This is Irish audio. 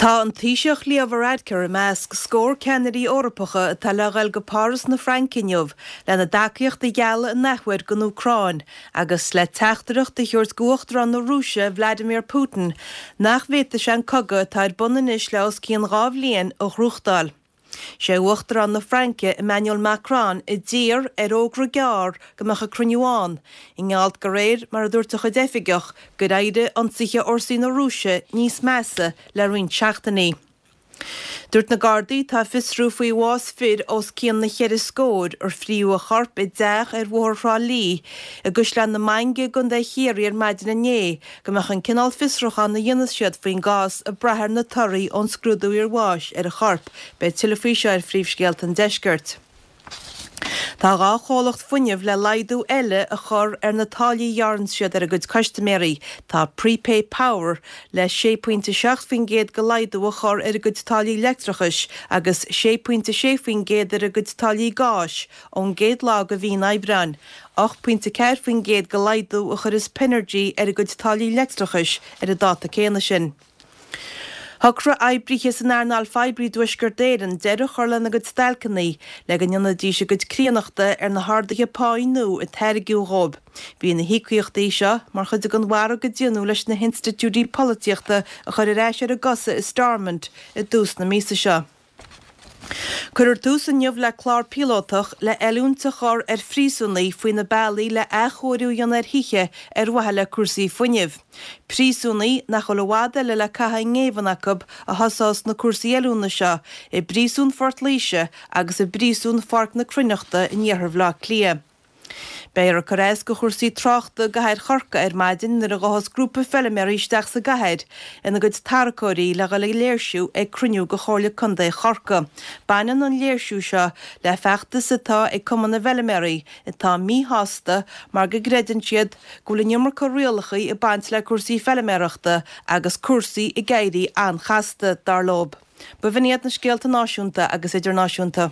Tá an Taoiseach Leo Varadkar i measc scór ceannairí Eorpacha atá le dhul go Páras na Fraince inniu lena dtacaíocht a ghealladh an athuair don Úcráin agus le teachtaireacht a thabhairt d'Uachtarán na Rúise Vladimir Putin nach bhféadfaidh sé an cogadh atá ar bun anois le os cionn 2 bhliain a ghnóthachtáil. Sé Uachtarán na Fraince, Emmanuel Macron, a d'iarr ar fhógra gearr go mbeadh an cruinniú ann, i ngeall de réir mar a dúirt a chuid oifigeach, gur éirigh ionsaithe fhórsaí na Rúise níos measa le roinnt seachtainí. Dúirt na Gardaí atá ag fiosrú faoi bhás fir os cionn na cheithre scóir ar fríodh a chorp i dteach ar Bhóthar Thrá Lí i gCaisleán na Mainge i gContae Chiarraí ar maidin inné go mbeadh an cineál fiosrúcháin a dhéanfas siad faoin gcás ag brath ar na torthaí ón scrúdú iarbháis ar an chorp. Beidh tuilleadh faoi seo ar Phríomhscéalta an Deiscirt. Tá 2 chomhlacht fuinnimh le laghdú eile a chur ar na táillí a ghearrann siad ar a gcuid custaiméirí. Tá Prepay Power le 6.7% de laghdú a chur ar a gcuid táillí leictreachais agus 6.6% ar a gcuid táillí gáis ón gcéad lá de mhí an Aibreáin. 8.4% de laghdú a chuirfeas Pinergy ar a gcuid táillí leictreachais ar an dáta céanna sin. Shocraigh oibrithe san earnáil phoiblí i dTuaisceart Éireann deireadh a chur lena gcuid stailceanna le go ndéanfaidís a gcuid críonnachta ar na harduithe páí nua a tairgeadh dhóibh. Bhí na híocaíochtaí seo mar chuid den mhargadh a déanadh leis na hinstitiúidí polaitíochta a chur ar ais ar a gcosa i Stormont i dtús na míosa seo. Cuirfear tús inniu le clár píolótach le oiliúint a chur ar phríosúnaigh faoi na bealaí le athchóiriú a dhéanamh ar thithe ar mhaithe le cúrsaí fuinnimh. Príosúnaigh nach bhfuil i bhfad eile le caitheamh i ngéibheann acu a thosós na cúrsaí oiliúna seo i bPríosún Phort Laoise agus i bPríosún Pháirc na Cruithneachta in iarthar Bhaile Átha Cliath. Beifear ag cur as do chúrsaí tráchta i gcathair Chorcaí ar maidin nuair a ghabhfas grúpa feilméaraí isteach sa gcathair ina gcuid tarracóirí le dhul ag léirsiú ag cruinniú de Chomhairle Contae Chorcaí. Baineann an léirsiú seo le feachtas atá ag Cumann na bhFeilméaraí atá míshásta mar go gcreideann siad go bhfuil an iomarca rialacha ag baint le cúrsaí feilméarachta agus cúrsaí ag éirí an-chasta, dar leob. B'in iad na scéalta náisiúnta agus idirnáisiúnta.